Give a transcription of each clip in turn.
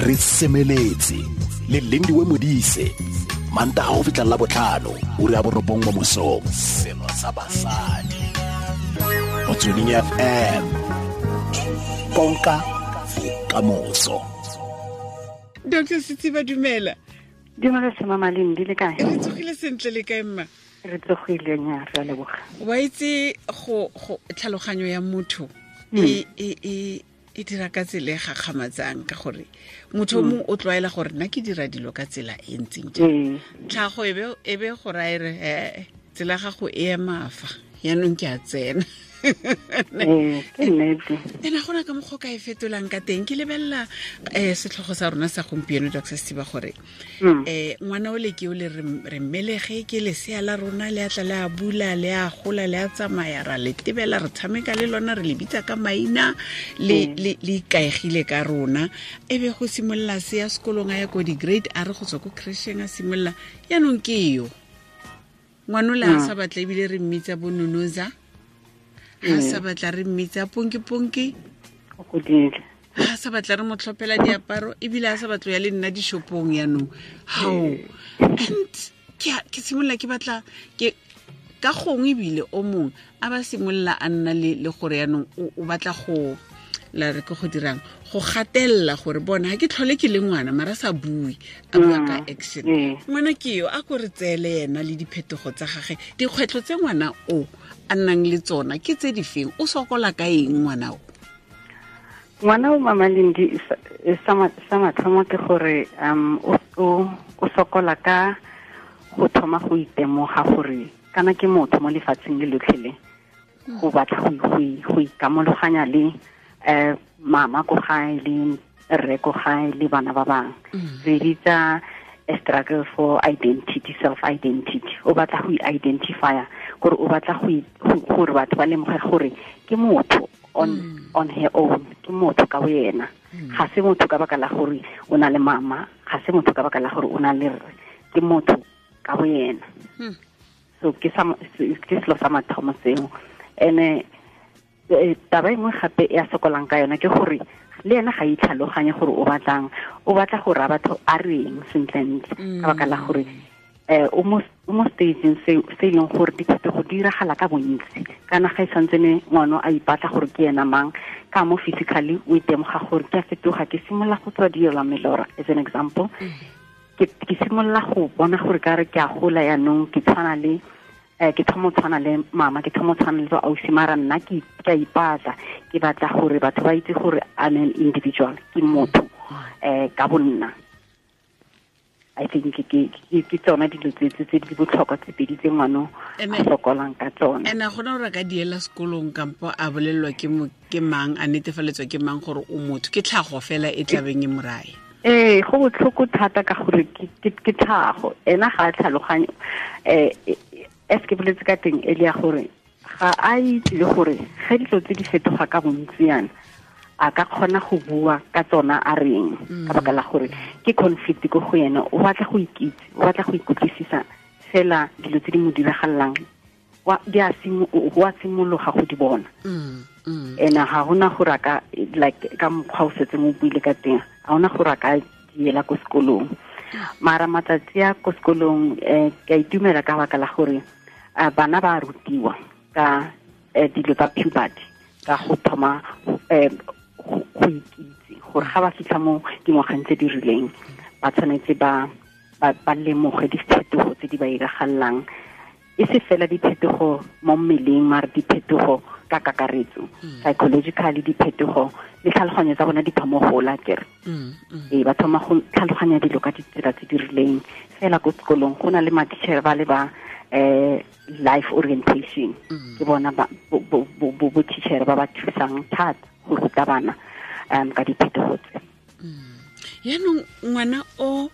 Re semeletse le Lindiwe Modise, Mantaga go fitlha la botlhano, ura ya 9 mo mosong. Selo sa basadi. Motsweding FM. Konka bokamoso. Dr. Setsiba, dumela. Dumela sema Malindi, le kae? Re tsogile sentle, le kae mma? Re tsogile nya, re a leboga. Wa itse go tlhaloganyo ya motho e dira ka tsela e gakgamatsang, ka gore motho o mongwe o tlwaela gore nna ke dira dilo ka tsela e ntseng jang. Tlhago e be go raya re tsela gago e ema fa, yaanong ke a tsena. Ke nnete. Ena gona ka mokgwa o ka e fetolang ka teng. Ke lebelela setlhogo sa rona sa gompieno, Dr. Setsiba, gore ngwana o le ke o le re mmelege, ke lesea la rona, le a tla le a bula, le a gola, le a tsamaya, ra le tebela, re tshameka le lona, re le bitsa ka maina, le le ikaegile ka rona. E be go simolola se ya sekolong, a ya ko di-grade, a re go tswa ko crècheng a simolola, yaanong ke yo ngwana o le a sa batla, ebile re mmitsa bononoza, ha sa batla re mmitsa ponki-ponki, ha sa batla re mo tlhophela diaparo, ebile a sa batlo ya le nna dishopong yaanong. How and ke simolola ke batla ke ka gongwe ebile o mongwe a ba simolola a nna le gore yaanong o batla go la re ke go dirang, go gatelela gore bona ha ke tlhole ke le ngwana, mara sa bue, a bua ka action. Ngwana ke yo a ko re tseele yena le diphetogo tsa gage, dikgwetlho tse ngwana o a nnang le tsona ke tse di feng, o sokola ka eng ngwana o? Ngwana o, Mama Lindi, sa mathomo ke gore o sokola ka go thoma go itemoga gore kana ke motho mo lefatsheng le lotlhe le, go batla go ikamologanya le mama ko gae le rre ko gae le bana ba bangwe. Re bitsa a struggle for identity, self-identity. O batla go i-identifya, gore o batla gore batho ba lemoge gore ke motho on her own, ke motho ka boyena. Ga se motho ka baka la gore o na le mama, ga se motho ka baka la gore o na le rre, ke motho ka boyena. So ke selo sa mathomo seo. Ene taba e nngwe gape e a sokolang ka yona ke gore le ena ga itlhaloganye gore o batlang, o batla go raya batho a reng sentlentle, ka baka la gore o mo stageng se e leng gore diphetogo di diragala ka bontsi. Kana ga e santsene ngwana a ipatla gore ke ena mang, ka mo physically o itemoga gore ke a fetoga, ke simolola go tswa dilo melora, as an example. Ke simolola go bona gore ka re ke a gola yaanong, ke tshwana le ke thoma tshwana le mama, ke thoma tshwana le ausi, mara nna ke a ipatla, ke batla gore batho ba itse gore I'm an individual, ke motho ka bonna. I think ke tsona dilo tse di botlhokwa tse pedi tse ngwana a sokolang ka tsona. Ene gona gore ka diela sekolong kampo a bolelelwa ke mang, a netefaletswa ke mang gore o motho, ke tlhago fela e tlabeng e morae. Go botlhoko thata ka gore ke tlhago, ena ga a tlhaloganye. As ke boletse ka teng e le ya gore ga a itse le gore ge dilo tse di fetoga ka bontsi yana, a ka kgona go bua ka tsona a reng, ka baka la gore ke conflict ko go yena. O batla go ikitse, o batla go ikutlwisisa fela dilo tse di mo diragalelang, wa simologa go di bona. Ena ga hona gore a ka, like ka mokgwa o setseng o buile ka teng, ga hona gore a ka diela ko sekolong. Mara matsatsi a ko sekolong ke a itumela ka baka la gore bana ba rutiwa ka dilo tsa puberty, ka go thoma go ikitse gore ga ba fitlha mo dingwageng tse di rileng, ba tshwanetse ba lemoge diphetogo tse di ba iragalelang, e se fela diphetogo mo mmeleng, mara diphetogo ka kakaretso, psychologically diphetogo le tlhaloganyo tsa bona di thoma go gola kere. Ba thoma go tlhaloganya dilo ka ditsela tse di rileng. Fela ko sekolong go na le matitjhere ba le ba life orientation, ke bona bo teacher ba ba thusang thata go ruta bana ka diphetogo tse. Yaanong ngwana o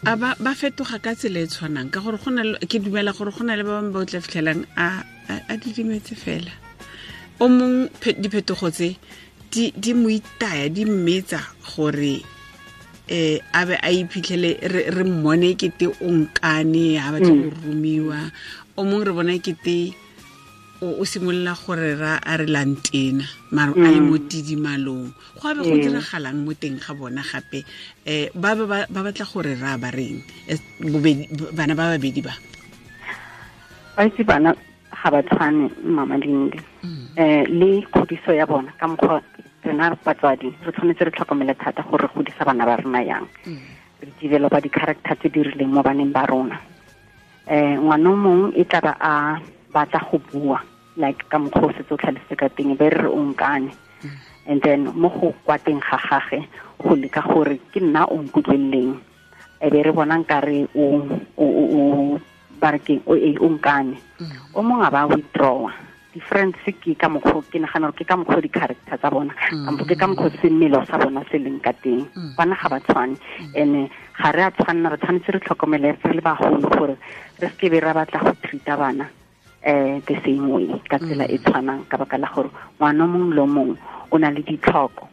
a ba fetoga ka tsela e tshwanang, ka gore gona ke dumela gore gona le ba bangwe ba o tla fitlhelang a didimetse fela. O mong diphetogo tse di mo itaya, di mmetsa gore a be a iphitlhele re mmone kete o nkane, ha batla go romiwa. O mong re bona kete O simolola gore ra a re lantena mara a le mo tidimalong go abe go diragalang mo teng ga bona gape ba ba batla gore ra ba reng bana ba babedi ba ba itse bana ga ba tshwane Mama Lindi le kgodiso ya bona ka mokgwa rena batswadi re tshwanetse re tlhokomele thata gore re godisa bana ba rona yang re developa di-character tse di rileng mo baneng ba rona ngwana o mongwe e tla ba a batla go bua like ka mokgwa o setse o tlhalositse ka teng be re re o nkane and then mo go kwa teng ga gage go leka gore ke nna o nkutlweleleng e be re bona nkare o ba re ke o nkane o mongwe a ba withdrawa difference ke ka mokgwa ke nagana gore ke ka mokgwa di-character tsa bona kampo ke ka mokgwa semelo sa bona se leng ka teng bana ga ba tshwane and ga re a tshwanna re tshwanetse re tlhokomele re le bagolo gore re seke be ra batla go treat-a bana the same way ka tsela e tshwanang ka baka la gore ngwana mongwe le mongwe o na le ditlhoko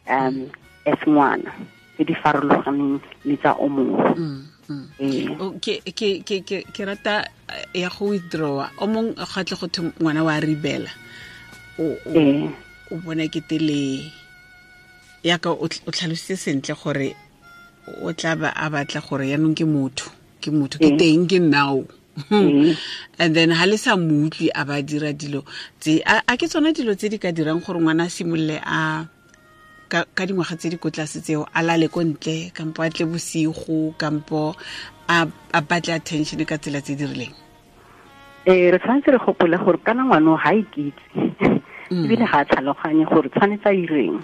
as ngwana tse di farologaneng le tsa o mongwe. Ke rata ya go withdrawa o mongwe ga tle go thwe ngwana wa rebela o bona ke tele ya ka o tlhalositse sentle gore o tla ba a batla gore yaanong ke motho ke teng ke nnao. And then ha le sa mo utlwe a ba dira dilo tse a ke tsona dilo tse di ka dirang gore ngwana a simolole a ka dingwaga tse di ko tlase tseo a lale ko ntle kampo a tle bosigo kampo a batle attention ka tsela tse di rileng. Re tshwanetse re gopole gore kana ngwana ga ikitse ebile ga a tlhaloganye gore tshwanetse a ireng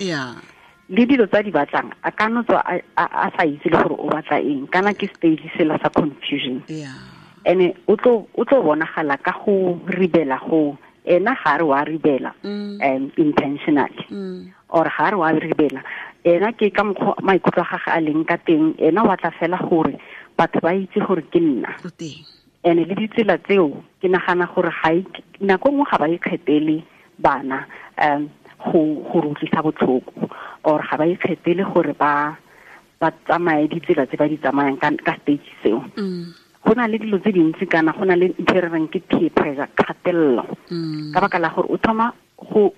le dilo tsa di batlang a ka no tswa a sa itse le gore o batla eng kana ke stage sela sa confusion. Ene o tlo bonagala ka go ribela go ena ga re wa ribela intentionally or ga re wa ribela ena ke ka mokgwa maikutlo a gagwe a leng ka teng ena wa tla fela gore batho ba itse gore ke nna ene le ditsela tseo ke nagana gore ga nako nngwe ga ba ikgethele bana go re utlwisa botlhoko or ga ba ikgethele gore ba tsamaye ditsela tse ba di tsamayang ka stage seo. Go na le dilo tse dintsi kana go na le ntho e re reng ke peer pressure kgatelelo ka baka la gore o thoma go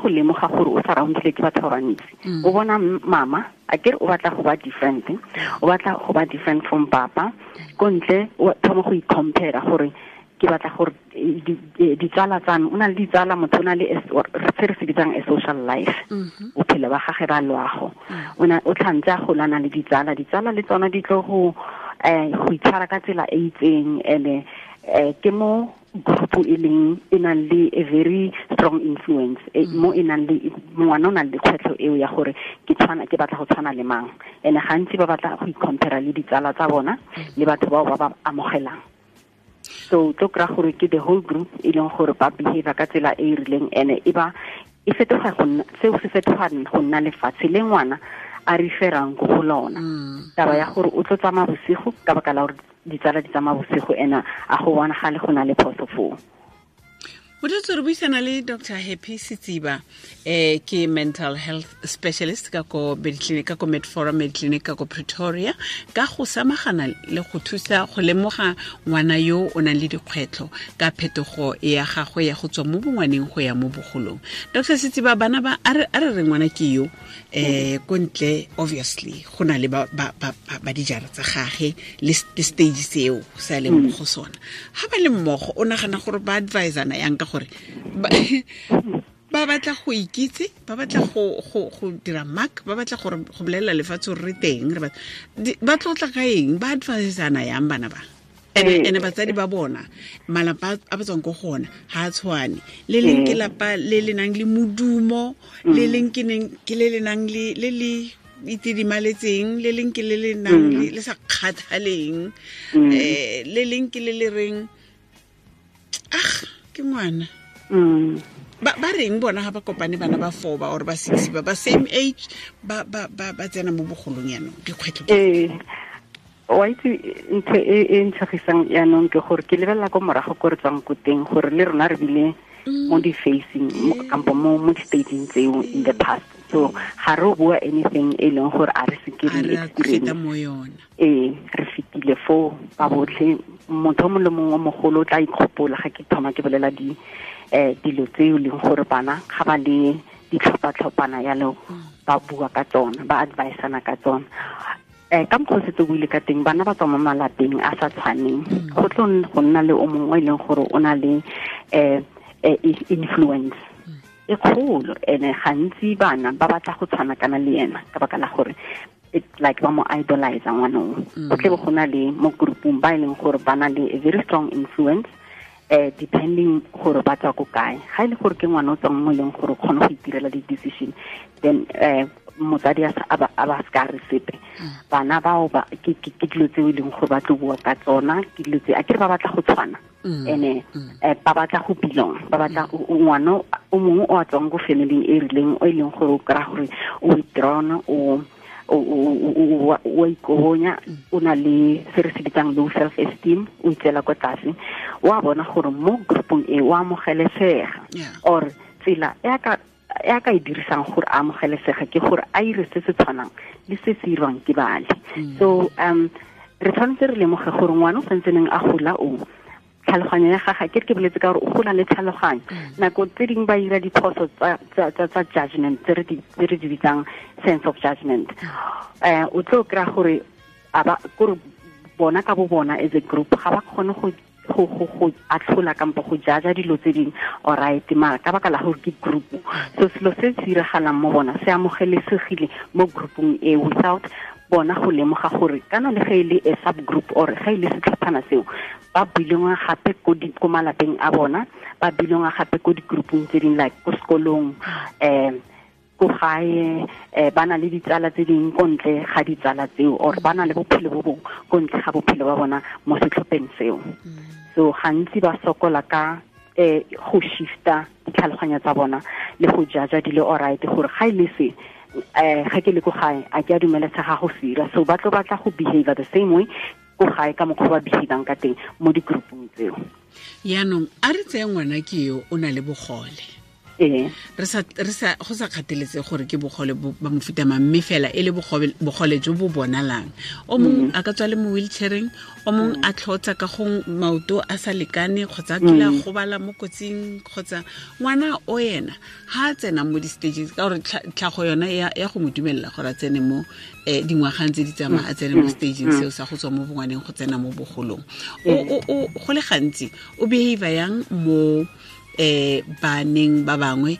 lemoga gore o surroundile ke batho ba bantsi o bona mama a kere o batla go ba different o batla go ba different from papa ko ntle o thoma go i-compare gore ke batla gore ditsala tsa me o na le ditsala motho o na le se re se bitsang a social life bophelo ba gage ba loago o tlhantse a golana le ditsala le tsona di tlo go itshwara ka tsela e itseng ene ke mo group e leng e nang le a very strong influence mo e nang le ngwana o nang le kgwetlho eo ya gore ke batla go tshwana le mang ene gantsi ba batla go i-compare le ditsala tsa bona le batho bao ba ba amogelang. So tlo kry-a gore ke the whole group e leng gore ba behavior ka tsela e e rileng ene e ba e fetoga go nna seo se fetoga go nna lefatshe le ngwana a referang go go lona. Taba ya gore o tlo tsamaya bosigo ka baka la gore ditsala di tsamaya bosigo ena a go bonagale go na le phoso foo. Motho re buisana le Dr. Happy Setsiba ke mental health specialist ka ko Mediclinic ka ko Medforum Mediclinic ka ko Pretoria ka go samagana le go thusa go lemoga ngwana yo o nang le dikgwetlho ka phetogo ya gagwe ya go tswa mo bongwaneng go ya mo bogolong. Dr. Setsiba bana ba a re re ngwana ke yo ko ntle obviously go na le ba dijara tsa gage le stage seo sa leng mo go sona. Ha ba le mmogo o nagana gore ba advisana yang ka gore ba batla go ikitse ba batla go dira mark ba batla gore go bolela lefatshe re teng re ba tlotla ka eng ba advisana yang bana ba ene batsadi ba bona malapa a ba tswang ko gona ha a tshwane le leng ke lapa le le nang le modumo le leng ke le le nang le le le itidimaletseng le leng ke le le nang le sa kgathaleng le leng ke le le reng ah ke ngwana ba reng bona ha ba kopane bana ba 4 ba or ba 6 ba same age ba tsena mo bogolong yanong dikgwetlho wa itse ntho e ntshagisang yanong ke gore ke lebelela ko morago ko re tswang ko teng gore le rona re bile mo di-facing kampo mo di-staging tseo in the past. So ga re bua anything e leng gore a re se ke re experience re fetile foo ba botlhe motho mongwe le mongwe o mogolo o tla ikgopola ga ke thoma ke bolela dilo tse e leng gore bana ga ba le ditlhopha-tlhophana yalo ba bua ka tsona, ba advisana ka tsona. Ka mokgwa o setse o buile ka teng, bana ba tswa mo malapeng a sa tshwaneng. Go tlo go nna le o mongwe e leng gore o na le influence e kgolo, ene gantsi bana ba batla go tshwana kana le ena ka baka la gore it's like ba mo idolize ngwanong. Go tle go na le mo groupung ba e leng gore ba na le a very strong influence, depending gore ba tswa ko kae. Ga e le gore ke ngwana o tswang mo e leng gore o kgone go itirela di-decision, then motsadi a ba se ka re sepe. Bana bao ba ke dilo tse e leng gore ba tlo bua ka tsona, ke dilo tse a kere ba batla go tshwana, ene ba batla go belong, ba batla ngwana o mongwe o a tswang ko family e rileng o e leng gore o kry-a gore o withdrawn, o ikobonya, o na le se re se bitsang low self esteem, o itseela kwa tlase, o a bona gore mo groupong e o amogelesega, or tsela e a ka e dirisang gore a amogelesega ke gore a ire se se tshwanang le se se irwang ke bale. So re tshwanetse re lemoge gore ngwana o santseneng a gola o tlhaloganyo ya gagwe, ke boletse ka gore o gola le tlhaloganyo. Nako tse dingwe ba ira diphoso tsa judgment tse re di bitsang sense of judgment. O tlo kry-a gore kore bona ka bo bona as a group ga ba kgone go atlhola kampo go jaja dilo tse dingwe, alright, mara ka baka la gore ke group. So selo se se diragalang mo bona se amogelesegile mo groupong e without bona go lemoga gore kana le ge e le a subgroup or ge e le setlhophana seo ba belonga gape ko malapeng a bona, ba belonga gape ko di-groupong tse dingwe like ko sekolong, ko gae, ba na le ditsala tse dingwe ko ntle ga ditsala tseo, or ba na le bophelo bo bongwe ko ntle ga bophelo ba bona mo setlhopheng seo. So gantsi ba sokola ka go shifta ditlhaloganyo tsa bona le go jaja dilo alright gore ga e le se ga ke le ko gae a ke a dumelesega go sira, so ba tlo batla go behave the same way ko gae ka mokgwa ba behavang ka teng mo di-groupong tseo. Yaanong a re tseye ngwana ke yo o na le bogole, re sa go sa kgatheletse gore ke bogole ba mofuta mang, mme fela e le bogole jo bo bonalang. O mongwe a ka tswa le mo wheelchaireng, o mongwe a tlhotsa ka go maoto a sa lekane, kgotsa a kile a gobala mo kotsing, kgotsa ngwana o ena ha a tsena mo di-stages ka gore tlhago yona ya go mo dumelela gore a tsene mo dingwagang tse di tsamaya, a tsene mo stageng seo sa go tswa mo bongwaneng go tsena mo bogolong. O go le gantsi o behave yang mo baneng ba bangwe?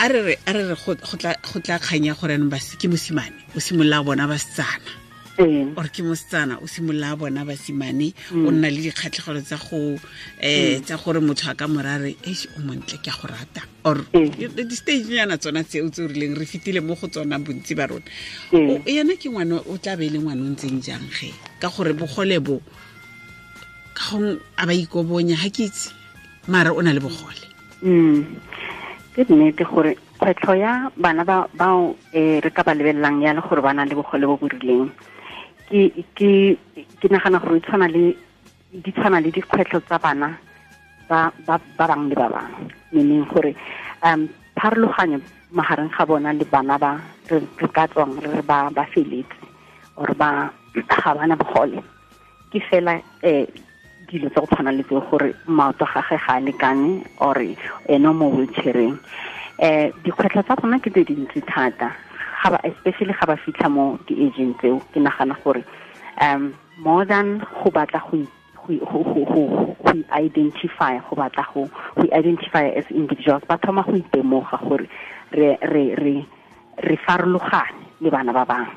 A re re go tla kganya gore anong ke mosimane o simolola bona basetsana, or ke mosetsana o simolola bona basimane, o nna le dikgatlhegelo tsa go tsa gore motho a ka morare eish o montle ke a go rata, or di-stage nyana tsona tseo tse o rileng re fetile mo go tsona bontsi ba rona. Yena ke ngwana o tla be e le ngwana o ntseng jang ge ka gore bogole bo ka gong a ba ikobonya, ga ke itse, mara o na le bogole. Ke nnete gore kgwetlho ya bana bao re ka ba lebelelang ya le gore ba na le bogole bo bo rileng, ke nagana gore di tshwana le dikgwetlho tsa bana ba bangwe le ba bangwe, meaning gore pharologanyo magareng ga bona le bana ba re ka tswang re ba feletse or ba ga bana bogole ke fela dilo tsa go tshwana le tseo gore maoto a gagwe ga a lekane or ene mo wheelchaireng. Dikgwetlho tsa bona ke tse dintsi thata, especially ga ba fitlha mo di-ageng tseo. Ke nagana gore more than go batla go identify, go batla go identify as individuals, ba thoma go itemoga gore re farologane le bana ba bangwe.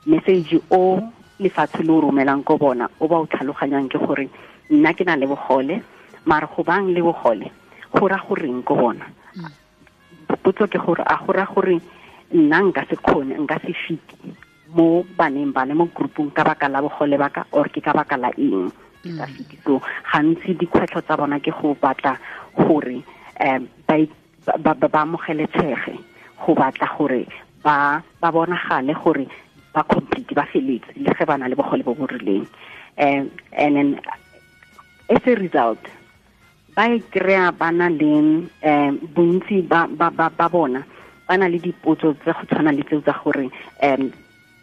Message o lefatshe le o romelang ko bona o ba o tlhaloganyang ke gore nna ke na le bogole, mara go bang le bogole go ra goreng ko bona. Potso ke gore a go ra gore nna nka se kgone, nka se fite mo baneng ba le mo groupong ka baka la bogole ba ka, or ke ka baka la eng ke sa fite. So gantsi dikgwetlho tsa bona ke go batla gore ba amogelesege, go batla gore ba bonagale gore ba complete, ba feletse le ge ba na le bogole bo bo rileng. And then as a result ba e kry-a ba na le bontsi ba bona ba na le dipotso tse go tshwana le tseo tsa gore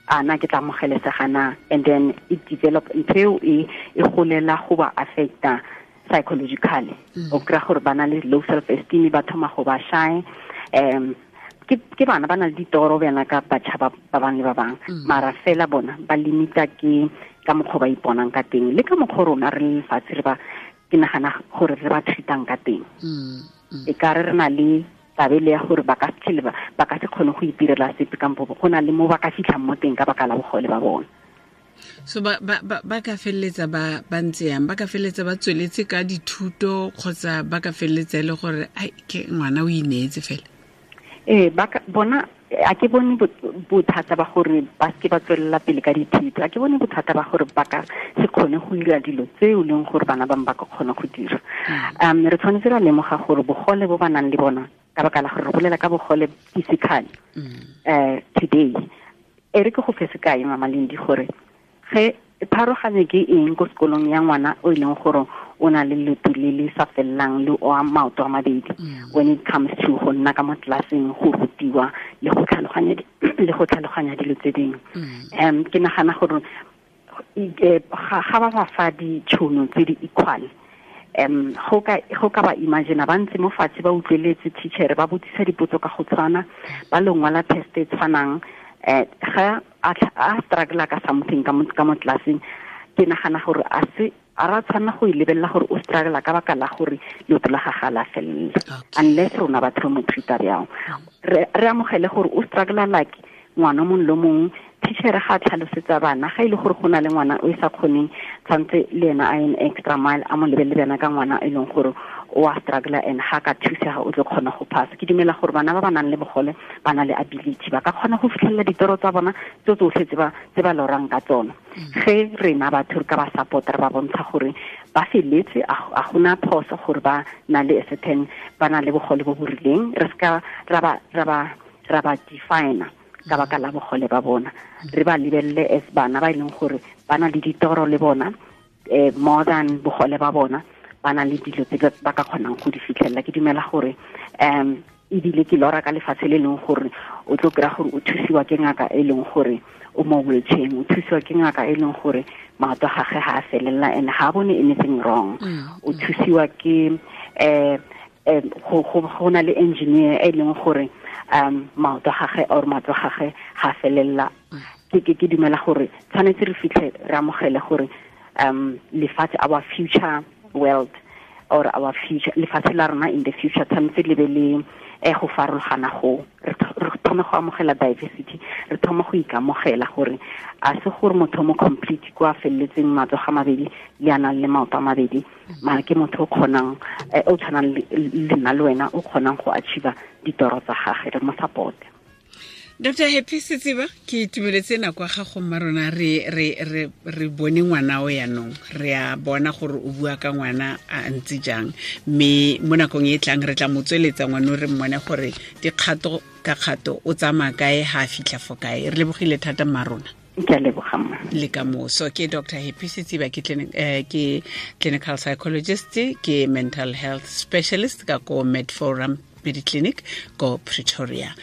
a na ke tla amogelesega na, and then it develop ntho eo e golela go ba affecta Psychologically o kry-a gore ba na le low self esteem, ba thoma go ba shy. Ke bana ba na le ditoro bjana ka batjha ba bangwe le ba bangwe, mara fela bona ba limita ke ka mokgwa ba iponang ka teng le ka mokgwa rona re le lefatshe re ba, ke nagana gore re ba treatang ka teng. E ka re na le tabele ya gore ba ka se ba ka se kgone go itirela sepe kampo go na le mo ba ka fitlhang mo teng ka baka la bogole ba bona. So ba ka feleletsa ba ntse yang, ba ka feleletsa ba tsweletse ka dithuto kgotsa ba ka feleletsa e le gore ai ke ngwana o ineetse fela? Ee, ba bona a ke bone bothata ba gore ba seke ba tswelela pele ka dithuto, a ke bone bothata ba gore ba ka se kgone go dira dilo tse e leng gore bana bangwe ba ka kgona go dira. Re tshwanetse ra lemoga gore bogole bo ba nang le bona, ka baka la gore re bolela ka bogole physically today. E re ke go fe sekai, Mama Lindi, gore ge pharoganye ke eng ko sekolong ya ngwana o e leng gore o na le leoto le le sa felelang le o a maoto a mabedi, when it comes to go nna ka mo tlelaseng, go rutiwa le go tlhaloganya dilo tse dingwe. Ke nagana gore ga ba ba fa ditšhono tse di equal, go ka ba imagine ba ntse mo fatshe ba utlweletse teacher ba botsisa dipotso ka go tshwana, ba lo ngwala test e tshwanang, ga a struggle ka something ka mo tlelaseng, ke nagana gore a se a ra tshwanela go e lebelela gore o struggle ka baka la gore leoto la gagwe la felela, unless rona batho re mo treat-a bjang. Re amogele gore o struggle like ngwana mongwe le mongwe. Teacher ga a tlhalosetsa bana, ga e le gore go na le ngwana o e sa kgoneng, tshwanetse le ena a an extra mile, a mo lebelele bjana ka ngwana e leng gore o a struggle and ga ka thusega o tlo kgona go pass. Ke dumela gore bana ba ba nang le bogole ba na le ability, ba ka kgona go fitlhelela ditoro tsa bona tse tsotlhe tse ba lorang ka tsona. Ge rena batho re ka ba support, re ba bontsha gore ba feletse, a gona phoso gore ba na le certain, ba na le bogole bo bo rileng, re seka ra ba define ka baka la bogole ba bona. Re ba lebelele as bana ba e leng gore ba na le ditoro le bona, more than bogole ba bona, ba na le dilo tse ba ka kgonang go di fitlhelela. Ke dumela gore ebile ke lora ka lefatshe le leng gore o tlo kry-a gore o thusiwa ke ngaka e leng gore o mo wheelchair, o thusiwa ke ngaka e leng gore maoto a gagwe ga a felela and ga a bone anything wrong. O thusiwa ke go na le engineer e leng gore maoto a gagwe or matlo a gagwe ga a felela. Ke dumela gore tshwanetse re fitlhe re amogele gore lefatshe, our future world or our future lefatshe la rona in the future, tshwanetse le be le go farologana, go re thome go amogela diversity, re thome go ikamogela gore a se gore motho mo complete kwa feleletseng matsogo a mabedi le a nang le maoto a mabedi, mara ke motho o kgonang, o tshwanang le nna le wena, o kgonang go achieve ditoro tsa gagwe, re mo support. Dr. Happy Setsiba, ke itumeletse nako ya gago mma rona, re bone ngwana o yanong, re a bona gore o bua ka ngwana a ntse jang, mme mo nakong e tlang re tla mo tsweletsa ngwana o re mmone gore dikgato ka kgato o tsamaya kae, ha a fitlha fo kae. Re lebogile thata mma rona. Ke a leboga mma. Le ka moso. Ke Dr. Happy Setsiba, ke clinical psychologist, ke mental health specialist ka ko Med Forum Mediclinic ko Pretoria.